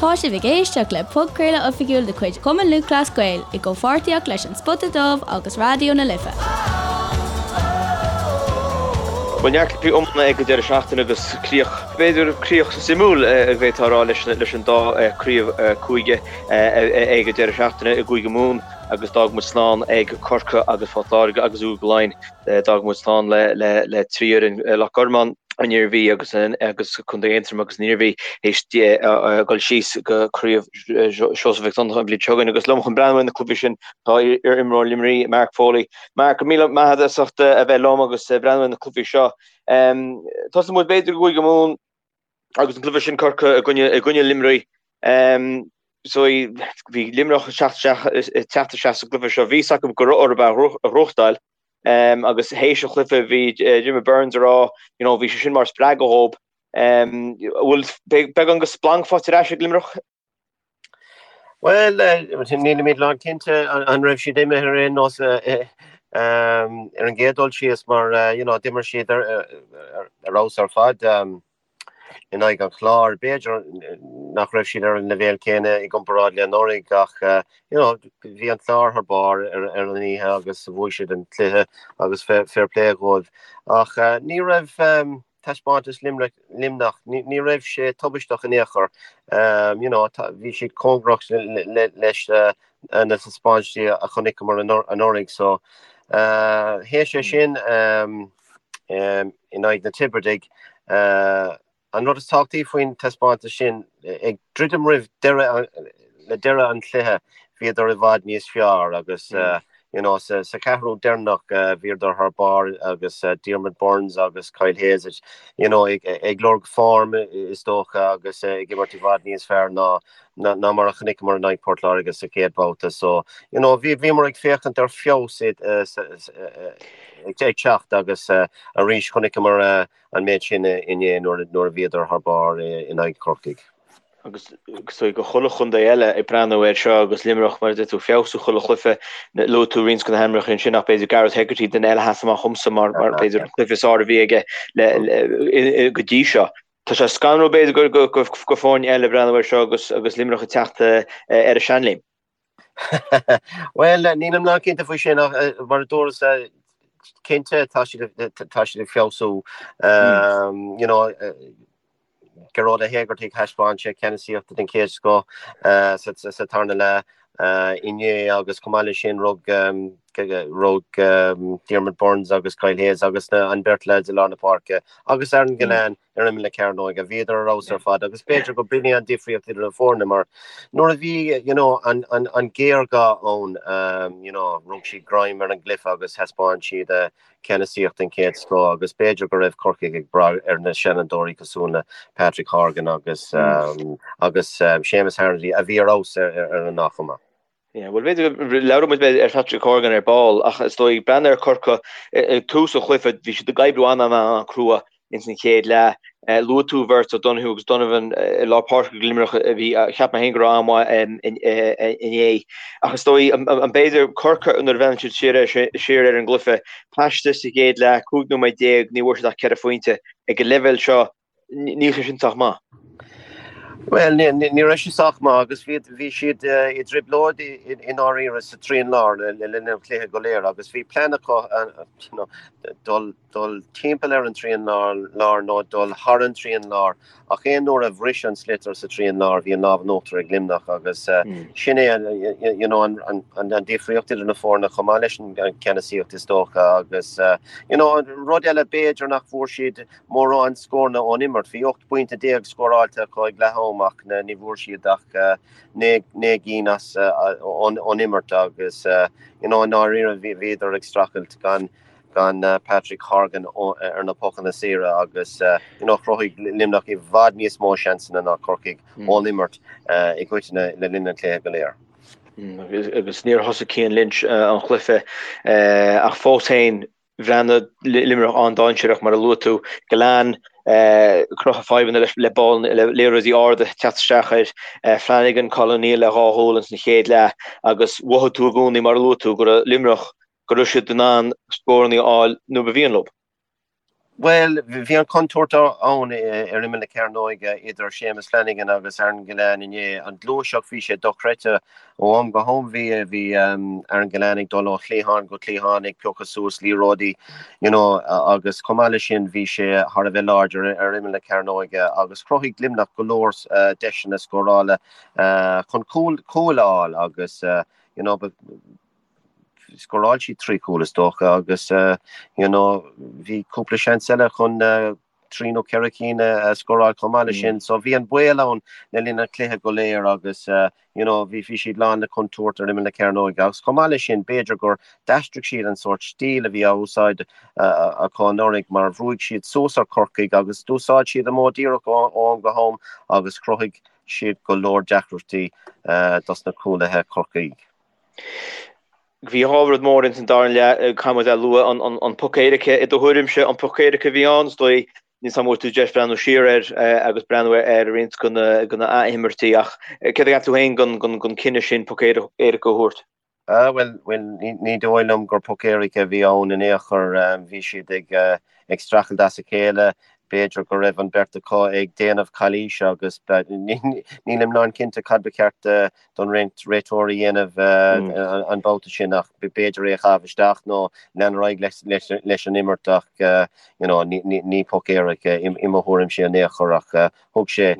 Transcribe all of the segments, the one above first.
Tá sibh ag éisteacht le podchraoladh oifigiúil de chuid Chumann Lúthchleas Gael i gcomhpháirtíocht leis An Spota Dubh agus Raidió na Life. Bhuel, neart cluichí iomána ag an deireadh seachtaine agus críoch, b'fhéidir críoch suimiúil a bhféadfá a rá leis leis an dá craobh cúige ag an deireadh seachtaine i gCúige Mumhan agus d'fhág muid slán ag Corcaigh agus Port Láirge agus Cúige Laighean. D'fhág muid slán le 3 fhoireann, Loch Garman, an Iarmhí agus agus Contae Aontroim agus an Iarmhí théis dul síos go Craobh Seosamh Mhic Donncha an bhliain seo chugainn. Agus liom chun breathnú ar na cluichí sin tá iar-imreoir Luimnigh, Mark Foley. Mark, go raibh míle maith agat as ucht a bheith liom agus breathnú ar na cluichí seo. Tosóidh muid b'fhéidir i gCúige Mumhan agus an cluiche sin Corcaigh i gcoinne i gcoinne Luimnigh. So bhí Luimneach ag teacht isteach ag teacht isteach sa gcluiche seo. Bhí a fhios acu go raibh orthu a ghnóthachtáil. Agus théis an chluiche bhí Diarmaid Byrnes ag rá you know bhí sé sin mar spreagadh dhóibh. Bhfuil beagán de splanc faighte ar ais ag Luimneach? Bhuel, nílimid lán cinnte an raibh siad imithe ar aon nós ar an gcéad dul síos mar you know d'imir siad ar fheabhas ar fad. in aghaidh an Chláir. B'fhéidir nach raibh siad ar an leibhéal céanna i gcomparáid le anuraidh ach you know bhí an Clár thar barr ar an oíche agus bhuaigh siad an cluiche agus fair play dhóibh. Ach ní raibh taispeántas Luimneach, ní raibh sé tubaisteach in aon chor. You know bhí siad cóngarach leis na taispeántaisí a chonaiceamar anuraidh so théis é sin in aghaidh na Tiobradaigh. An rud is tábhachtaí faoin taispeántas sin, ag druidim roimh deireadh le deireadh an chluiche, bhíodar i bhfad níos fearr agus you know sa cheathrú deireanach bhíodar thar barr agus Diarmaid Byrnes agus Kyle Hayes you know ag lorg form is dócha agus ag imirt i bhfad níos fearr ná ná mar a chonaiceamar in aghaidh Port Láirge sa chéad bhabhta. So, you know, bhí, bhíomar ag féachaint ar feabhas ag teacht agus arís chonaiceamar an méid sin inné nuair nuair a bhíodar thar barr in aghaidh Chorcaigh. Agus so go chuile chontae eile ag breathnú air seo agus Luimneach mar a deir tú ag feabhsú chuile chluiche, luaigh tú roinnt de na hainmneacha ansin ach b'fhéidir Gareth Hegarty duine eile a sheas amach dhomsa mar mar b'fhéidir an cluiche is fearr a bhí aige le go dtí seo. Tá sé scanrúil b'fhéidir go go foirne eile breathnú air seo agus agus Luimneach ag teacht ar a seanléim. Bhuel, nílim lán cinnte faoi sin ach mar a dúras cinnte tá siad tá siad ag feabhsú. You know, Gearóid Ó hÉigeartaigh thaispeáin sé ceannasaíocht den chéad scoth sa sa tarna leath inné agus chomh maith leis sin rug rug Diarmaid Byrnes agus Kyle Hayes agus an beirt leaids i lár na páirce agus Aaron Gillane ar imeall na cearnóige. Bhíodar ar fheabhas ar fad agus b'fhéidir go b'in é an difríocht idir na foirne mar nuair a bhí you know an an an géarghá ann you know rug siad greim ar an gcluiche agus thaispeáin siad ceannasaíocht den chéad scoth agus b'fhéidir go raibh Corcaigh ag brath ar na seanfhondúirí cosúil le Patrick Horgan agus agus Séamus Harnedy a bhí ar fheabhas ar an ndá chuma. Yeah, bhuel b'fhéidir go labhróidh muid ar Patrick Horgan ar ball ach is dóigh breathnú ar Corcaigh ag tús an chluiche bhí siad ag oibriú an-an-an-crua ins an chéad leath. Luaigh tú bheirt O'Donoghue agus Donovan i lár páirce ag Luimneach a bhí cheap mé féin go raibh an-mhaith inné. Ach is dóigh an b'fhéidir Corcaigh nuair a bhreathnaíonn siad siar siar ar an gcluiche paiste sa gcéad leath, 15 nóiméad, ní bhfuair siad ach 4 phointe. Ag an leibhéal seo Níl sé sin sách maith. Bhuel, ní raibh sé sách maith agus bhí bhí siad i dtrioblóid i ndáiríre sa trian lár le linn an chluiche go léir agus bhí plean acu you know, dul dul timpeall ar an trian lár nó dul thar an trian lár ach aon uair a bhris an sliotar sa trian lár bhí an lámh in uachtar ag Luimneach agus sin é you know, an, an, an, an difríocht idir na foirne chomh maith leis an ceannasaíocht is dócha agus you know, rud eile b'fhéidir nach bhfuair siad mórán scóranna ón imirt. Bhí 18 bpointe scóráilte acu ag leath am ach ní bhfuair siad ach 9 gcinn as ón imirt agus you know i ndáiríre bhíodar ag streachailt gan gan Patrick Horgan ar na pocanna saora agus you know chruthaigh Luimneach i bhfad níos mó seansanna ná Corcaigh ón imirt i gcoitinne le linn an chluiche go léir. Agus níor thosaigh Cian Lynch an chluiche ach fós féin Bhreathnaigh Luimneach an-dainséarach mar a luaigh tú. Gillane cruthaithe fadhbanna leis le ball le liathróidí arda teacht isteach air. Flanagan, Colin O'Neill le dhá chúl ins an chéad leath agus mhothaigh tú i gcónaí mar a luaigh tú go raibh Luimneach go raibh siad in ann scóranna a fháil nuair ba mhian leo. Bhuel, bhí an chontúirt ann ar imeall na cearnóige idir Séamus Flanagan agus Aaron Gillane inné. An ghluaiseacht, bhí sé dochreidte. Ó am go ham bhí bhí Aaron Gillane ag dul ó chliathán go cliathán ag piocadh suas liathróidí you know agus chomh maith leis sin bhí sé thar a bheith láidir ar imeall na cearnóige agus chruthaigh Luimneach go leor deiseanna scórála chun cúil a fháil agus you know Scóráil siad 3 chúl is dócha agus you know bhí cúpla seans eile chun 3 nó 4 cinn a scóráil chomh maith leis sin. So bhí an baol ann le linn an chluiche go léir agus you know bhí bhí siad lán le contúirt ar imeall na cearnóige agus chomh maith leis sin b'fhéidir gur d'aistrigh siad an sórt stíl a bhí á úsáid acu anuraidh mar bhrúigh siad suas ar Chorcaigh agus d'úsáid siad an modh díreach ó am go ham agus chruthaigh siad go leor deacrachtaí dos na cúlaithe Corcaigh. Bhí dhá rud mór ins an dara leath, caithfidh muid a lua, an poc éirice, i do thuairimse, an poc éirice a bhí ann, is dóigh, níl 's a'm an bhfuair tú deis breathnú siar air agus breathnú ar roinnt de na ath-imirtí ach céard a cheap tú féin den cinneadh sin poc éirice a thabhairt? Bhuel, bhuel, ní dóigh liom gur poc éirice a bhí ann in aon chor. Bhí siad ag ag streachailt as a chéile. B'fhéidir go raibh an beirt acu ag déanamh calaoise agus nílim lán cinnte cad ba cheart don réiteoir a dhéanamh an babhta sin ach b'fhéidir é a chaitheamh isteach nó lean ar aghaidh leis an imirt ach you know ní poc éirice i mo thuairimse in aon chor ach thug sé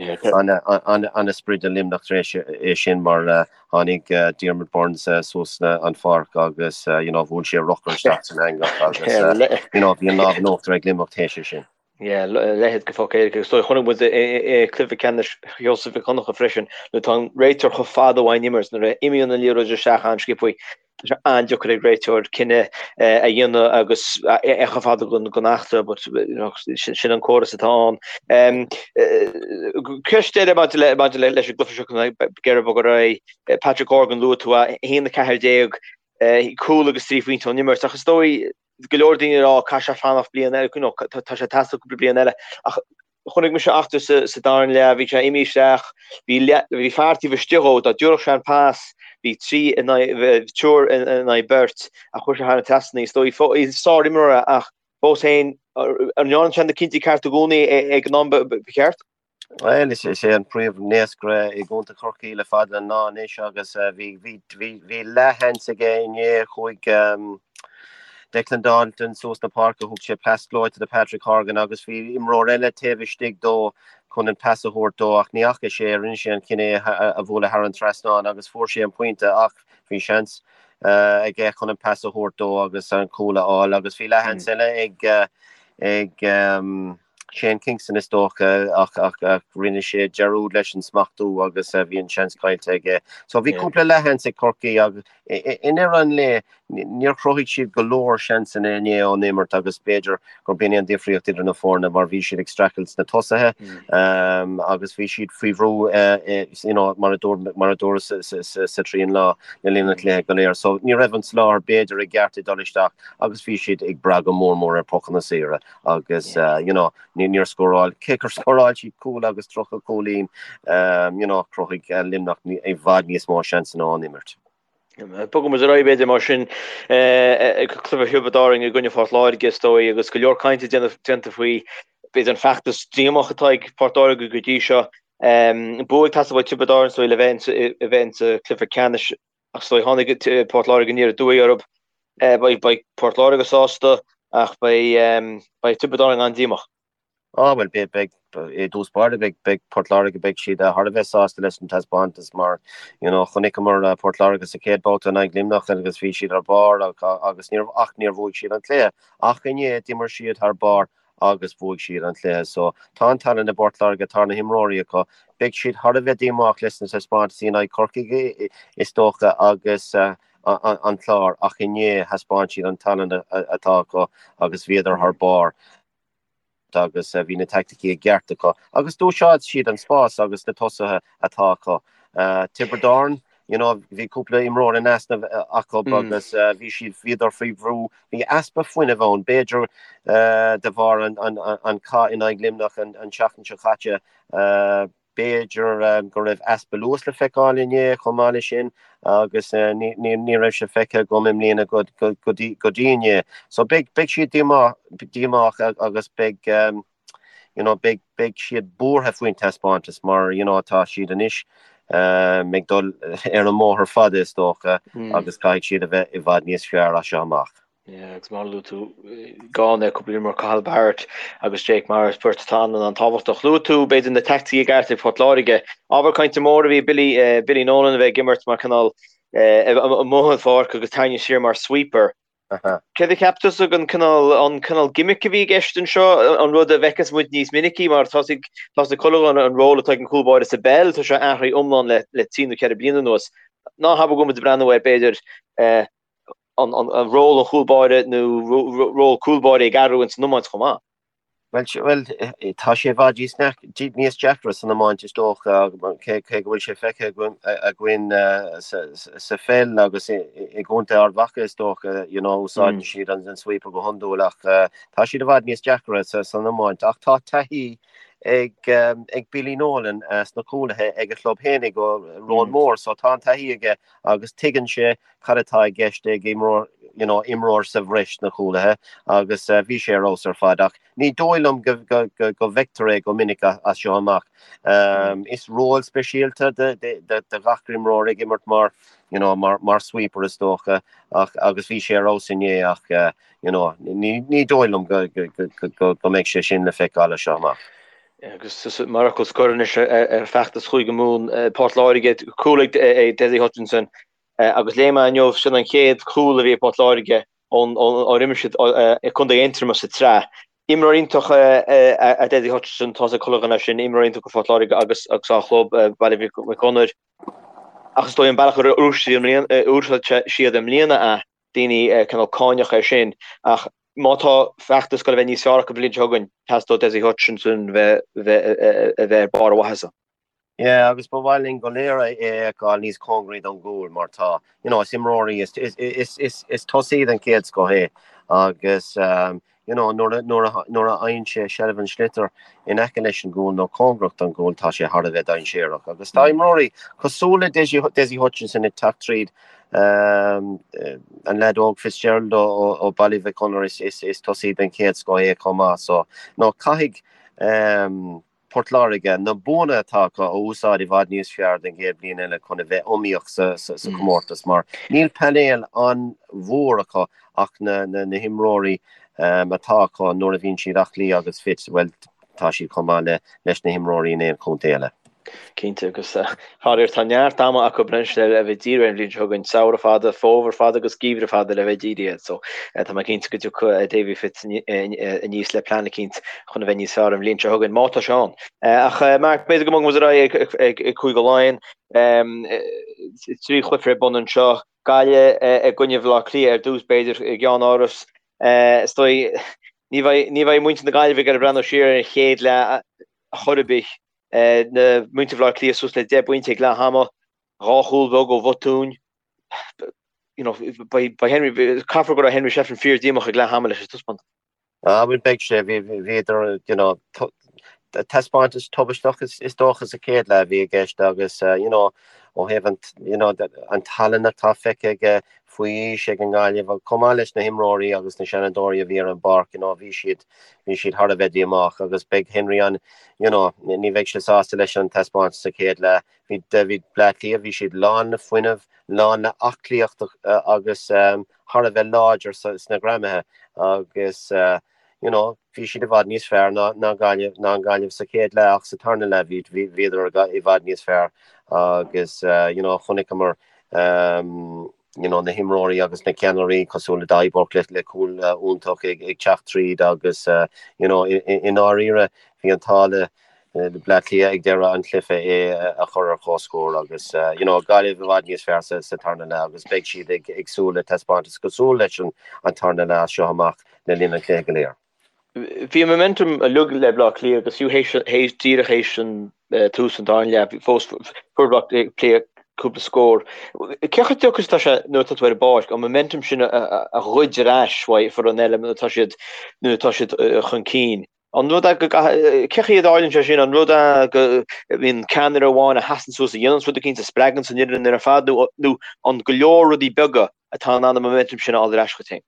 an-sprid do Luimneach tar éis é sin mar tháinig Diarmaid Byrnes suas an pháirc agus you know bhuail sé a rothar isteach san eangach agus you know bhí an lámh in uachtar ag Luimneach théis é sin. Yeah, leithéid de phoc éirice. Is dóigh, chonaic muid i cluiche ceannais Sheosaimh Mhic Dhonncha freisin, nuair atá an réiteoir chomh fada ón imirt, nuair a imíonn an liathróid isteach an-sciobtha, tá sé an-deacair ag réiteoir cinneadh a dhéanamh agus é chomh fada den eachtra, but sin an córas atá ann. Ceist eile maidir le maidir le leis an gcluiche seo ag iarraidh bogadh ar aghaidh, Patrick Horgan, luaigh tú é, 1-14, cúl agus 3 phointe ón imirt, ach is dóigh, go leor daoine ag rá caithfidh sé fanacht bliain eile, you know, tá sé ag teastáil cúpla bliain eile. Ach chonaic mise eachtra sa, sa dara leath, bhí sé imithe isteach, bhí, bhí fear taobh istigh dhó, dá dtabharfadh sé an pas, bhí trí in aghaidh, triúr in aghaidh beirt, ach chuir sé thar an trasnán, is dóigh, sár-imreoir é ach fós féin, an ndearna sé na cinntí cearta i gcónaí ag an am ba cheart? Bhuel, is é an príomh-naoscaire i gContae Chorcaí le fada an lá anois agus bhí bhí leathsheans aige inné. Chuaigh Declan Dalton suas na páirce, thug sé pas gleoite do Patrick Horgan agus bhí imreoir eile taobh istigh dó chun an pas a thabhairt dó ach ní fhaca sé, rinne sé an cinneadh é a bhualadh thar an trasnán agus fuair sé an pointe ach bhí seans aige chun an pas a thabhairt dó agus an cúl a fháil agus bhí leathsheans eile ag ag Shane Kingston is dócha ach ach rinne sé dearúd leis an smachtú agus bhí an seans caillte aige. So bhí cúpla leathsheans ag Corcaigh agus i ndeireadh an lae níor chruthaigh siad go leor seansanna inné ón imirt agus b'fhéidir gur b'in é an difríocht idir na foirne mar bhí siad ag streachailt sna tosaithe agus bhí siad faoi bhrú you know mar a dúirt mar a dúradh sa trian lá le linn an chluiche go léir. So ní raibh an soláthar b'fhéidir i gceart ag dul isteach agus bhí siad ag brath go mór mór ar pocanna saora. agus you know níor scóráil, cé gur scóráil siad cúl agus 30 cúilín, you know chruthaigh Luimneach i bhfad níos mó seansanna ón imirt. Bogfaidh muid ar aghaidh b'fhéidir mar sin ag cluiche Thiobraid Árann i gcoinne Phort Láirge is dóigh agus go leor cainte déanta faoi b'fhéidir an feachtas díomách atá ag Port Láirge go dtí seo. Bua ag teastáil ó Thiobraid Árann is dóigh le bheith insa cluiche ceannais Ach is dóigh tháinig Port Láirge aniar aduaidh orthu. Beidh Port Láirge sásta ach beidh Tiobraid Árann an-díomách. Á bhuel, beidh, beidh, i dtús báire beidh, beidh Port Láirge, beidh siad thar a bheith sásta leis an taispeántas mar, you know, chonaiceamar Port Láirge sa chéad babhta in aghaidh Luimneach agus bhí siad ar barr agus níor, ach níor bhuaigh siad an cluiche. Ach inné d'imir siad thar barr agus bhuaigh siad an cluiche. So, tá an tallann i bPort Láirge, tá na himreoirí acu. Beidh siad thar a bheith díomách leis na taispeántaisí in aghaidh Corcaigh is dócha agus an Clár ach inné thaispeáin siad an tallann atá acu agus bhíodar thar barr agus bhí na taicticí i gceart acu agus d'úsáid siad an spás agus na tosaithe atá acu. Tiobraid Árann, you know, bhí cúpla imreoir in easnamh acu agus bhí siad, bhíodar faoi bhrú, bhí easpa fuinnimh ann, b'fhéidir de bharr an cath in aghaidh Luimneach an tseachtain seo caite. B'fhéidir go raibh easpa luas le feiceáil inné chomh maith leis sin agus ní raibh sé feicthe agam i mbliana go dtí inné. So beidh siad díomách agus beidh you know beidh beidh siad buartha faoin taispeántas mar you know tá siad anois ag dul ar an mbóthar fada is dócha agus caithfidh siad a bheith i bhfad níos fearr as seo amach. Yeah, agus mar a luaigh tú, gan cúpla imreoir Cathal Barrett agus Jake Morris, beirt atá an-tábhachtach. Luaigh tú, b'fhéidir, na teaicticí i gceart ag Port Láirge. Ábhar cainte mór a bhí Billy, Billy Nolan a bheith ag imirt mar cineál amuigh an pháirc agus tarraingt siar mar sweeper. Céard a cheap tusa den cineál, an cineál gimmick a bhí i gceist anseo, an rud a bhfeicfeas muid níos minicí mar tá ag, tá ag chuile dhuine an ról atá ag an chúl báire sa bpeil, tá sé athraithe iomlán le, le trí nó ceithre bliana anuas. Ná habair go bhfuil muid ag breathnú ar b'fhéidir an, an, an ról an chúl báire nó ról cúl báire ag athrú ins an iomáint chomh maith. Bhuel, bhuel, tá sé i bhfad níos deacra san iomáint is dócha, cé go bhfuil sé feicthe againn sa pheil agus i gContae Ard Mhacha is dócha, you know, úsáideann siad an sweeper go hiondúil ach tá siad i bhfad níos deacra san iomáint. Ach tá taithí ag Billy Nolan sna cúlaithe ag a chlub fhéinig ó Roanmore, so tá an taithí aige agus tuigeann sé cad atá i gceist ag imreoir, you know, imreoir sa bhreis sna cúlaithe agus bhí sé ar fheabhas ar fad ach ní dóigh liom go, go, go, go bhfeictear é go minic as seo amach. Is ról speisialta do, do, do, do gach imreoir ag imirt mar, you know, mar, mar sweeper is dócha ach, agus bhí sé ar fheabhas inné ach, you know, ní, ní dóigh liom go, go, go, go, go mbeidh sé sin le feiceáil as seo amach. Agus mar fhocal scoir anois ar feachtas Chúige Mumhan, Port Láirge, cúl ag Dessie Hutchinson, Agus léigh mé inniu, sin an chéad chúl a bhí ag Port Láirge ónar imir siad i gContae Aontroma sa tsraith. Imreoir iontach é Dessie Hutchinson, tá a fhios ag chuile dhuine sin, imreoir iontach do Phort Láirge agus dá chlub, Baile Mhic Gonair. Ach is dóigh an bealach ar úsáid siad i mbliana é, daoine cineál cáineach é sin. Ach má tá feachtas ag goil a bheith níos fearr acu an bhliain seo chugainn, teastóidh Dessie Hutchinson bheith ar barr a mhaitheasa. Yeah, agus ba mhaith linn go léir é a fheiceáil níos cóngaraí don gcúl mar tá, you know, is imreoir é, is, is, is, is, is tosaí den chéad scoth é agus, um, you know, nuair a, nuair a, nuair a fhaigheann sé seilbh an sliotair in aice leis an gcúl nó cóngarach don gcúl, tá sé thar a bheith dainséarach. Agus tá imreoirí cosúil le Dessie, Dessie Hutchinson ag teacht tríd, um, an leaid óg Fitzgerald ó, ó, ó Baile Mhic Gonair is, is, is tosaí den chéad scoth é chomh maith. So, no, caithfidh, um, Port Láirge, na buanna atá acu a úsáid i bhfad níos fearr den gcéad bhliain eile chun a bheith iomaíoch sa chomórtas mar níl painéal an-mhór acu ach na himreoirí atá acu nuair a bhíonn siad aclaí agus fit, bhuel, tá siad chomh maith leis na himreoirí in aon chontae eile. Cinnte, agus faraor tá neart ama acu anois le bheith dírithe ar an bhliain seo chugainn, samhradh fada, fómhar fada agus geimhreadh fada le bheith dírithe air. So tá mé cinnte go dtiocfaidh Davy Fitz aníos le plean eicínt chun a bheith níos fearr an bhliain seo chugainn, má tá sé ann. Ach Mark, b'fhéidir go mbogfaidh muid ar aghaidh ag Cúige Laighean. 3 chluiche ar bun anseo, Gaillimh i gcoinne Bhaile Átha Cliath ar dtús b'fhéidir, i gceannáras. Is dóigh ní bheidh muintir na Gaillimhe ag iarraidh breathnú siar ar an chéad leath chor ar bith. Na muintir Bhaile Átha Cliath suas le 10 bpointe ag leath ama, 2 chúl bheag ó bhotúin. You know, beidh Henry, caithfear go raibh Henry Shefflin fíor díomách ag leath ama leis an taispeántas. Ah, bhuel beidh sé, bhí, bhíodar, you know, taispeántas tubaisteach is dócha sa chéad leath a bhí i gceist agus, you know, ó thaobh an, you know, an tallann atá feicthe aige faoi aois ag an nGaillimh, chomh maith leis na himreoirí agus na seanadóirí a bhí ar an bpáirc, you know, bhí siad, bhí siad thar a bheith díomách agus beidh Henry an, you know, ní bheidh sé sásta leis an taispeántas sa chéad leath. Bhí, bhí Bleá Cliath, bhí siad lán le fuinneamh, lán le aclaíocht agus thar a bheith láidir sna greamaithe agus, you know, bhí siad i bhfad níos fearr ná, ná Gaillimh, ná an Ghaillimh sa chéad leath ach sa tarna leath bhí, bhí, bhíodar i bhfad níos fearr agus, you know, chonaiceamar, you know, na himreoirí agus na ceannairí cosúil le Daithí Burke le, le cúl iontach ag, ag teacht tríd agus, you know, i, i, i ndáiríre bhí an t-ádh le, le Bleá Cliath ag deireadh an chluiche é a chur ar comhscór agus, you know, Gaillimh i bhfad níos fearr sa, sa tarna leath agus beidh siad ag, ag súil le taispeántas cosúil leis an, an tarna leath as seo amach le linn an chluiche go léir. Bhí an momentum uilig le Bleá Cliath agus fiú théis díreach théis an tús an dara leath fós fuair Bleá Cliath cúpla scór. Cé chomh deacair is atá sé nuair atá tú ar an bpáirc an momentum sin a ghoid ar ais uaidh foireann eile nuair atá siad nuair atá siad chun cinn? An rud é go gcaithfidh, cé chaoi a dtarlaíonn sé sin, an rud é go mbíonn ceannaire amháin a sheasann suas a dhéananns rud eicínt a spreaganns an fhoireann ar fad nó nó an go leor rudaí beaga atá in ann an momentum sin a fháil ar ais chugat féin?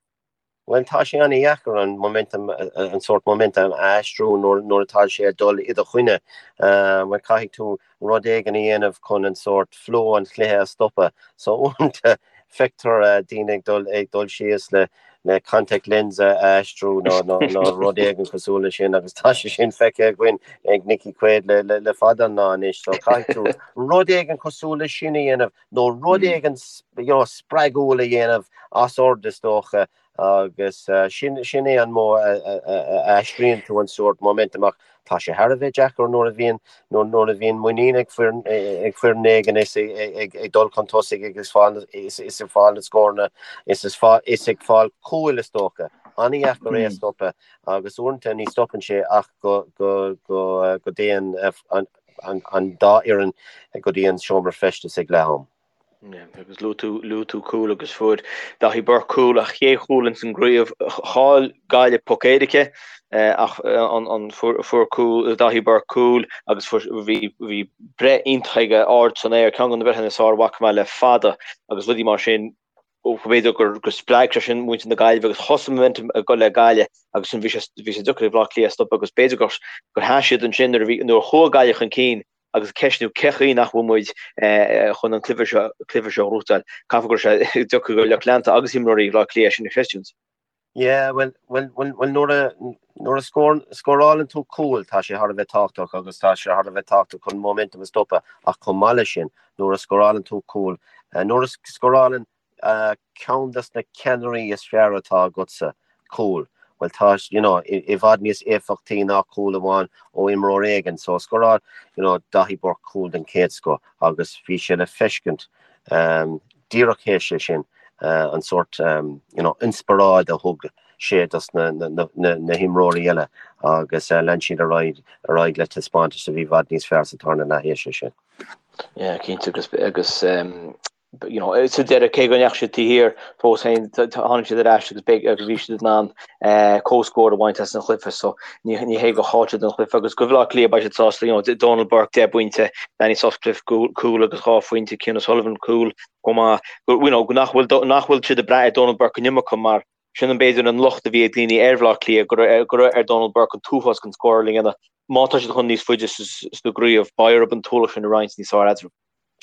Bhuel, tá sé an-dheacair an momentum, an sórt momentum a aistriú nuair nuair atá sé ag dul i do choinne. Bhuel, caithfidh tú rud éigin a dhéanamh chun an sórt flow an chluiche a stopadh. So uaireanta feictear daoine ag dul ag dul síos le le contact lens a aistriú nó nó nó rud éigin cosúil leis sin agus tá sé sin feicthe againn ag Nicky Quaid le le le fada an lá anois. So caithfidh tú rud éigin cosúil leis sin a dhéanamh nó rud éigin you know spreagúil a dhéanamh as ord is dócha agus sin sin é an modh a aistríonn tú an sórt momentum ach tá sé thar a bheith deacair nuair a bhíonn nuair a bhíonn muinín ag foireann ag foireann éigin is ag ag dul chun tosaigh agus fáil is is ag fáil na scóranna is is fá is ag fáil cúil is dócha. An-dheacair é a stopadh agus uaireanta ní stopann sé ach go go go go dtéann an an dá fhoireann go dtí an seomra feistis ag leath am. Agus luaigh tú, luaigh tú cúl agus fuair Daithí Burke cúl, a chéad chúl ins an gcraobh. Chaill Gaillimh poc éirice ach an, an, fuair, fuair cúl, Daithí Burke cúl agus fuair, bhí, bhí breith iontach aige ard san aer, ceann de na breitheanna is fearr a bhfaca mé le fada agus rudaí mar sin. B'fhéidir gur, gur spreag sé sin muintir na Gaillimhe agus thosaigh an momentum ag dul le Gaillimh agus sin bhí sé, bhí sé deacair ag Bleá Cliath stopadh agus b'fhéidir gur, gur sheas siad ansin nuair a bhí, nuair a chuaigh Gaillimh chun cinn agus ceistniú cé chaoi nach bhfuil muid chun an cluiche seo cluiche seo a ghnóthachtáil. Caithfidh go raibh sé deacair do lucht leanta agus imreoirí Bhaile Átha Cliath sin a chreidiúint. Yeah, bhuel, bhuel, bhuel, bhuel nuair a, nuair a scór, scórálann tú cúl, tá sé thar a bheith tábhachtach agus tá sé thar a bheith tábhachtach chun momentum a stopadh ach chomh maith leis sin, nuair a scórálann tú cúl, nuair a scórálann ceann des na ceannairí is fearr atá agatsa, cúl, bhuel tá, you know, i bhfad níos éifeachtaí ná cúl amháin ó imreoir éigin. So scóráil, you know, Daithí Burke cúl den chéad scoth agus bhí sé le feiscint díreach théis é sin, an sórt, you know, inspioráid a thug sé dos na, na, na, na himreoirí eile agus lean siad ar aghaidh, ar aghaidh le taispeántas a bhí i bhfad níos fearr sa tarna leath théis é sin. Yeah, cinnte agus, agus you know, sa deireadh cé go ndeachaigh siad taobh thiar fós féin tháinig siad ar ais agus beidh agus bhí siad in ann comhscór a bhaint as an chluiche so ní ní hé gur chaill siad an chluiche agus do Bhaile Átha Cliath beidh siad sásta you know, Donal Burke 10 bpointe, Danny Sutcliffe cúl agus 2 phointe, Cian O'Sullivan cúl chomh maith you know, nach bhfuil nach bhfuil siad ag brath ar Donal Burke an iomarca mar sin an b'fhéidir an locht a bhí ag daoine ar Bhaile Átha Cliath go raibh go raibh ar Donal Burke an t-uafás den scóráil a dhéanamh má tá siad chun níos faide sa gcraobh beidh orthu an t-ualach sin a roinnt níos fearr eatarthu.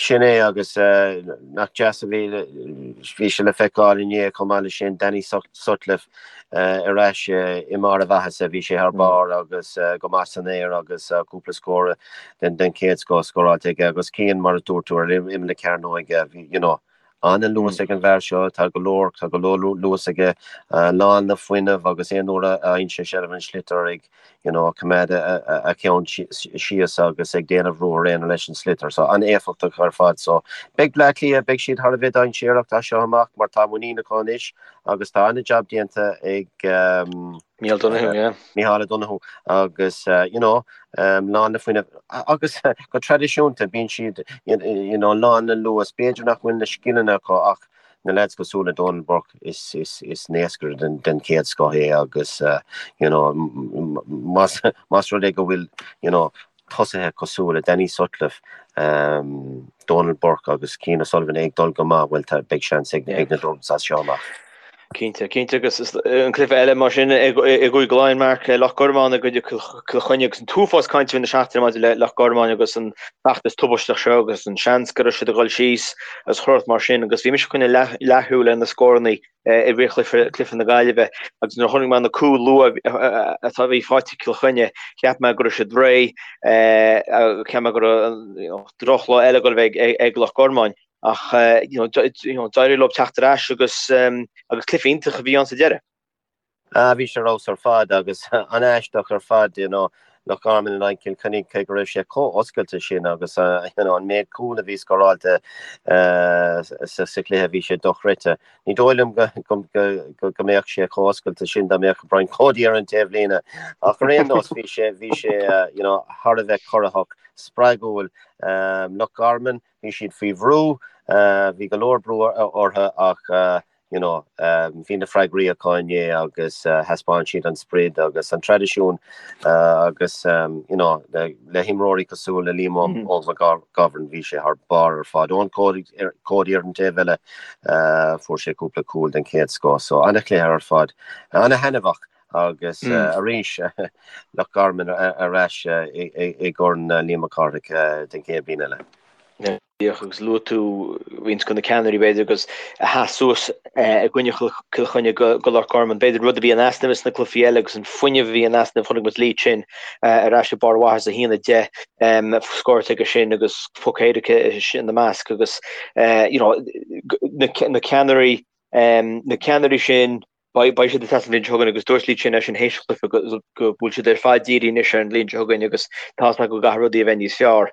Sin é agus nach deas a bhí, bhí sé le feiceáil inné chomh maith leis sin, Danny Sutcliffe ar ais i mbarr a mhaitheasa, bhí sé thar barr agus go maith san aer agus cúpla scór den chéad scoth scóráilte aige agus Cian, mar a dúirt tú, ar imeall na cearnóige, bhí, you know, an-luas ag an bhfear seo, tá go leor, tá go leor luas aige, lán le fuinneamh agus aon uair a fhaigheann sé seilbh an sliotar ag, you know, coimeád a cheann síos agus ag déanamh ruathar aonair leis an sliotar. So an-éifeachtach ar fad. So beidh Bleá Cliath, beidh siad thar a bheith dainséarach as seo amach mar tá muinín acu anois agus tá an-jab déanta ag Micheál Donoghue, yeah. Micheál O'Donoghue agus you know, lán le fuinneamh agus go traidisiúnta bíonn siad you know, lán le luas. B'fhéidir nach bhfuil na scileanna acu ach na lads cosúil le Donal Burke is is is naoscaire den den chéad scoth é agus you know más más rud é go bhfuil you know tosaithe cosúil le Danny Sutcliffe, Donal Burke agus Cian O'Sullivan ag dul go maith, bhuel tá beidh seans ag ag na Dubs as seo amach. Cinnte, cinnte agus an cluiche eile mar sin i gCúige Laighean, Mark, Loch Garman i gcoinne Cill Chainnigh agus an t-uafás cainte na seachtaine maidir le Loch Garman agus an feachtas tubaisteach seo agus an seans go raibh siad ag dul síos agus chuile shórt mar sin agus bhí mise ag coinneáil leathshúil ar na scóranna i rith chluiche cluiche na Gaillimhe agus nuair a chonaic mé na cúil luath atá bhí faighte ag Cill Chainnigh cheap mé go raibh siad réidh cheap mé go raibh drochlá eile ag dul a bheith ag Loch Garman. Ach d'éirigh leo teacht ar ais agus agus cluiche iontach a bhí ann sa deireadh. Ah, bhí sé ar fheabhas ar fad agus an-aisteach ar fad, you know, Loch Garman in aghaidh Cill Chainnigh, cé go raibh sé chomh oscailte sin agus you know, an méid cúl a bhí scóráilte sa chluiche, bhí sé dochreidte. Ní dóigh liom go go go go mbeadh sé chomh oscailte sin dá mbeadh Brian Cody ar an taobhlíne. Ach ar aon nós, bhí sé bhí sé you know, thar a bheith corraitheach, spreagúil. Loch Garman, Bhí siad faoi bhrú, bhí go leor brú orthu ach you know, bhí na freagraí acu inné agus thaispeáin siad an sprid agus an traidisiún agus, you know, le himreoirí cosúil le Liam Óg McGovern, bhí sé thar barr ar fad. Eoin Cody ar an taobh eile, fuair sé cúpla cúl den chéad scoth. So, an-chluiche ar fad, an-thaitneamhach agus arís Loch Garman ar ais i gCorn Liam Mac Cárthaigh den chéad bhliain eile. Díreach agus luaigh tú roinnt de na ceannairí, b'fhéidir, agus a sheas suas i gcoinne Chill Chainnigh do Loch Garman. B'fhéidir rud a bhí in easnamh sna cluichí eile agus an fuinneamh a bhí in easnamh, chonaic muid Lee Chin ar ais ag barr a mhaitheasa, 1-10 scóráilte aige sin agus poc éirice ina measc agus you know na ceannairí na ceannairí sin Beidh siad ag teastáil an bhliain seo chugainn agus dúirt Lee Chin é sin théis an chluiche go bhfuil siad ar fad dírithe anois ar an bhliain seo chugainn agus tá fhios acu go gcaithfidh rudaí a bheith níos fearr.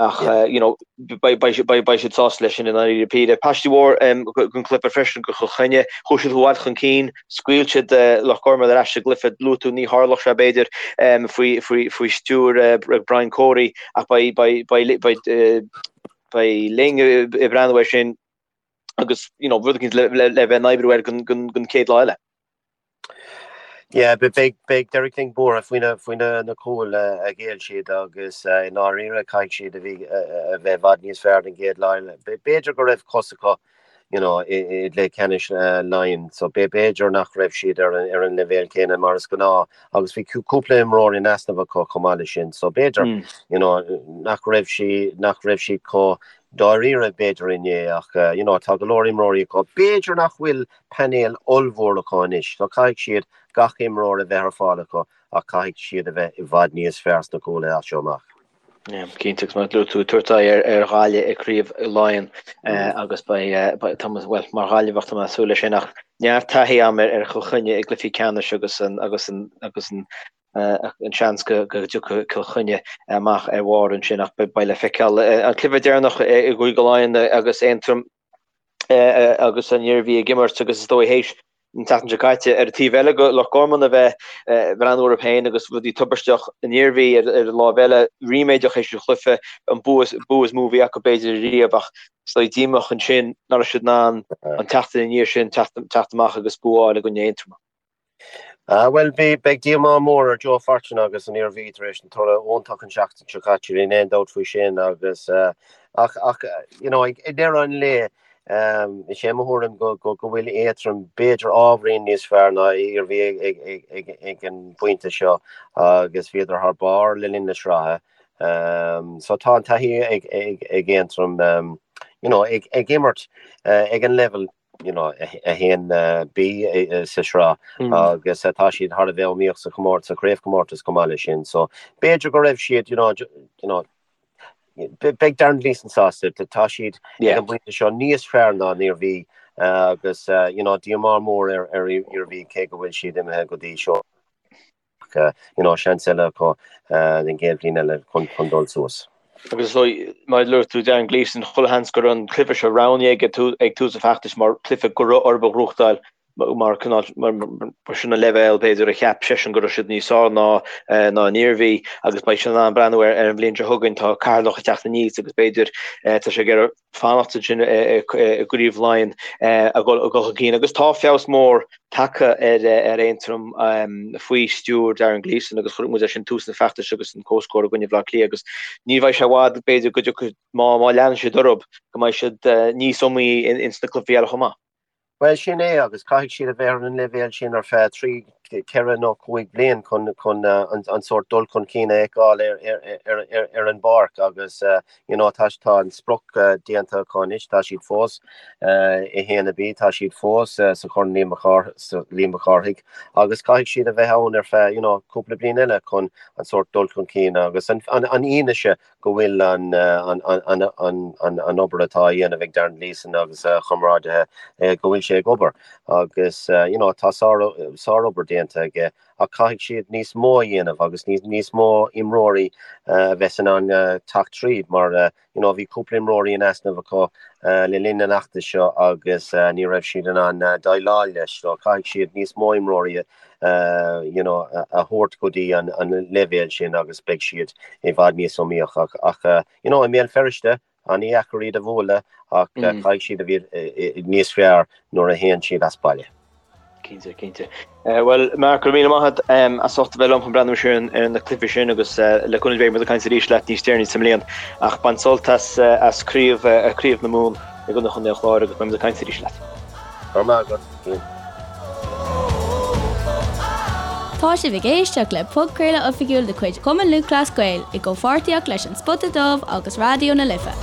Ach you know beidh siad sásta leis sin i ndáiríre píre. Paistí mhór den chluiche freisin do Chill Chainnigh. Chuaigh siad i bhfad chun cinn, scaoil siad Loch Garman ar ais sa gcluiche. Luaigh tú ní tharlódh sé b'fhéidir faoi stiúir Brian Cody ach beidh Ling ag breathnú air sin. agus you know, rud éicint le, le, le bheith in oibriú air don, don, don chéad lá eile. Yeah, beidh, beidh Derek Lyng buartha faoi na, faoi na, na cúil a ghéill siad agus i ndáiríre caithfidh siad a bhí, a bheith i bhfad níos fearr don gcéad lá eile. B'fhéidir go raibh cos acu you know, i, i gcluiche ceannais Laighean, so b'fhéidir nach raibh siad ar an, ar an leibhéal céanna mar is gnáth agus bhí cúpla imreoir in easnamh acu chomh maith leis sin, so b'fhéidir, you know, nach raibh sí, nach raibh siad chomh dáiríre b'fhéidir inné ach you know tá go leor imreoirí acu. B'fhéidir nach bhfuil painéal ollmhór acu anois so caithfidh siad gach imreoir a bheith ar fáil acu ach caithfidh siad a bheith i bhfad níos fearr sna cúlaithe as seo amach. Yeah, cinnte agus mar a luaigh tú ag tabhairt aghaidh ar, ar Ghaillimh i gCraobh Laighean agus beidh, beidh, tá mé, bhuel, mar Ghaillimheach tá mé ag súil leis sin ach neart taithí agam ar, ar Chill Chainnigh i gcluichí ceannais agus an, agus an, agus an, an seans go dtiocfaidh Cill Chainnigh amach ar bharr ansin ach beidh le feiceáil. An cluiche deireanach i gCúige Laighean agus Aontroim agus an Iarmhí ag imirt agus is dóigh théis an tseachtain seo caite ar an taobh eile do Loch Garman a bheith ag breathnú orthu féin agus rudaí tubaisteach an Iarmhí ar an láimh eile ríméadach théis an chluiche an bua is mó a bhí acu b'fhéidir riamh ach is dóigh díomách ansin nach raibh siad in ann an tseachtain ina dhiaidh sin teacht amach agus bua a fháil i gcoinne Aontroma. Ah, bhuel, bhí, beidh díomá mór ar Joe Fortune agus an Iarmhí tar éis an toradh iontach an seachtain seo caite, níl aon dabht faoi sin agus, ach, ach, you know, ag deireadh an lae, is é mo thuairim go, go, go bhfuil Aontroim b'fhéidir ábhairín níos fearr ná Iarmhí ag, ag, ag, ag, ag an bpointe seo agus bhíodar thar barr le linn na sraithe. So tá an taithí ag, ag, ag Aontroim, you know, ag, ag imirt ag an level you know, 1B sa sraith agus tá siad thar a bheith iomaíoch sa chomórtas, sa chraobhchomórtas chomh maith leis sin. So b'fhéidir go raibh siad, you know, you know, beidh Darren Gleeson sásta, tá siad ag an bpointe seo níos fearr ná an Iarmhí agus, you know, díomá mór ar ar Iarmhí cé go bhfuil siad imithe go dtí seo. Ach you know, seans eile acu den gcéad bhliain eile chun dul suas. Agus is dóigh, mar a luaigh tú, Darren Gleeson, chuile sheans go raibh an cluiche seo roghnaithe aige ag tús an fheachtais mar chluiche go raibh orthu a ghnóthachtáil mar cineál, mar sin an leibhéal b'fhéidir a cheap seisean go raibh siad níos fearr ná ná an Iarmhí agus beidh sé in ann breathnú ar an bhliain seo chugainn, tá Ceatharlach ag teacht aníos agus b'fhéidir tá sé ag iarraidh fanacht ansin i gCraobh Laighean a dhul chun cinn agus tá feabhas mór tagtha ar Aontroim faoi stiúir Darren Gleeson agus chonaic muid é sin tús an feachtais agus an comhscór i gcoinne Bhaile Átha Cliath agus ní bheidh sé i bhfad b'fhéidir go dtiocfaidh má leanann siad orthu go mbeidh siad níos iomaíche ins na cluichí eile chomh maith. Bhuel, sin é, agus caithfidh siad a bheith ar an leibhéal sin ar feadh trí, ceithre nó cúig bliain chun chun an sórt dul chun cinn a fheiceáil ar ar ar an bpáirc agus you know tá tá an sprioc déanta acu anois, tá siad fós i 1B, tá siad fós sa Chorn Liam Liam Mac Cárthaigh agus caithfidh siad a bheith ann ar feadh you know cúpla bliain eile chun an sórt dul chun cinn agus an an an fhianaise go bhfuil an obair atá á dhéanamh ag Darren Gleeson agus a chomrádaithe, go bhfuil sé ag obair agus you know tá sárobair déanta aige ach caithfidh siad níos mó a dhéanamh agus níos mó imreoirí a bheith in ann teacht tríd mar you know bhí cúpla imreoirí in easnamh acu le linn an fheachtais seo agus ní raibh siad in ann déileáil leis so caithfidh siad níos mó imreoirí you know, a thabhairt go dtí an leibhéal sin agus beidh siad i bhfad níos iomaíoch. Ach, you know, i mBéal Feirste. An-dheacair iad a bhualadh ach caithfidh siad a bheith níos fearr nuair a théann siad as baile. Cinnte, cinnte. Bhuel, Mark, go raibh míle maith agat as ucht a bheith liom chun breathnú siar ar na cluichí sin agus le cúnamh Dé beidh muid ag caint arís leat níos deireanaí sa mbliain. Ach bain sult as as craobh craobh na Mumhan i gcoinne Chontae an Chláir agus beidh muid ag caint arís leat. Go raibh maith agat, Cian. Tá sibh ag éisteacht le podchraoladh oifigiúil de chuid Chumann Lúthchleas Gael i gcomhpháirtíocht leis An Spota Dubh agus Raidió na Life.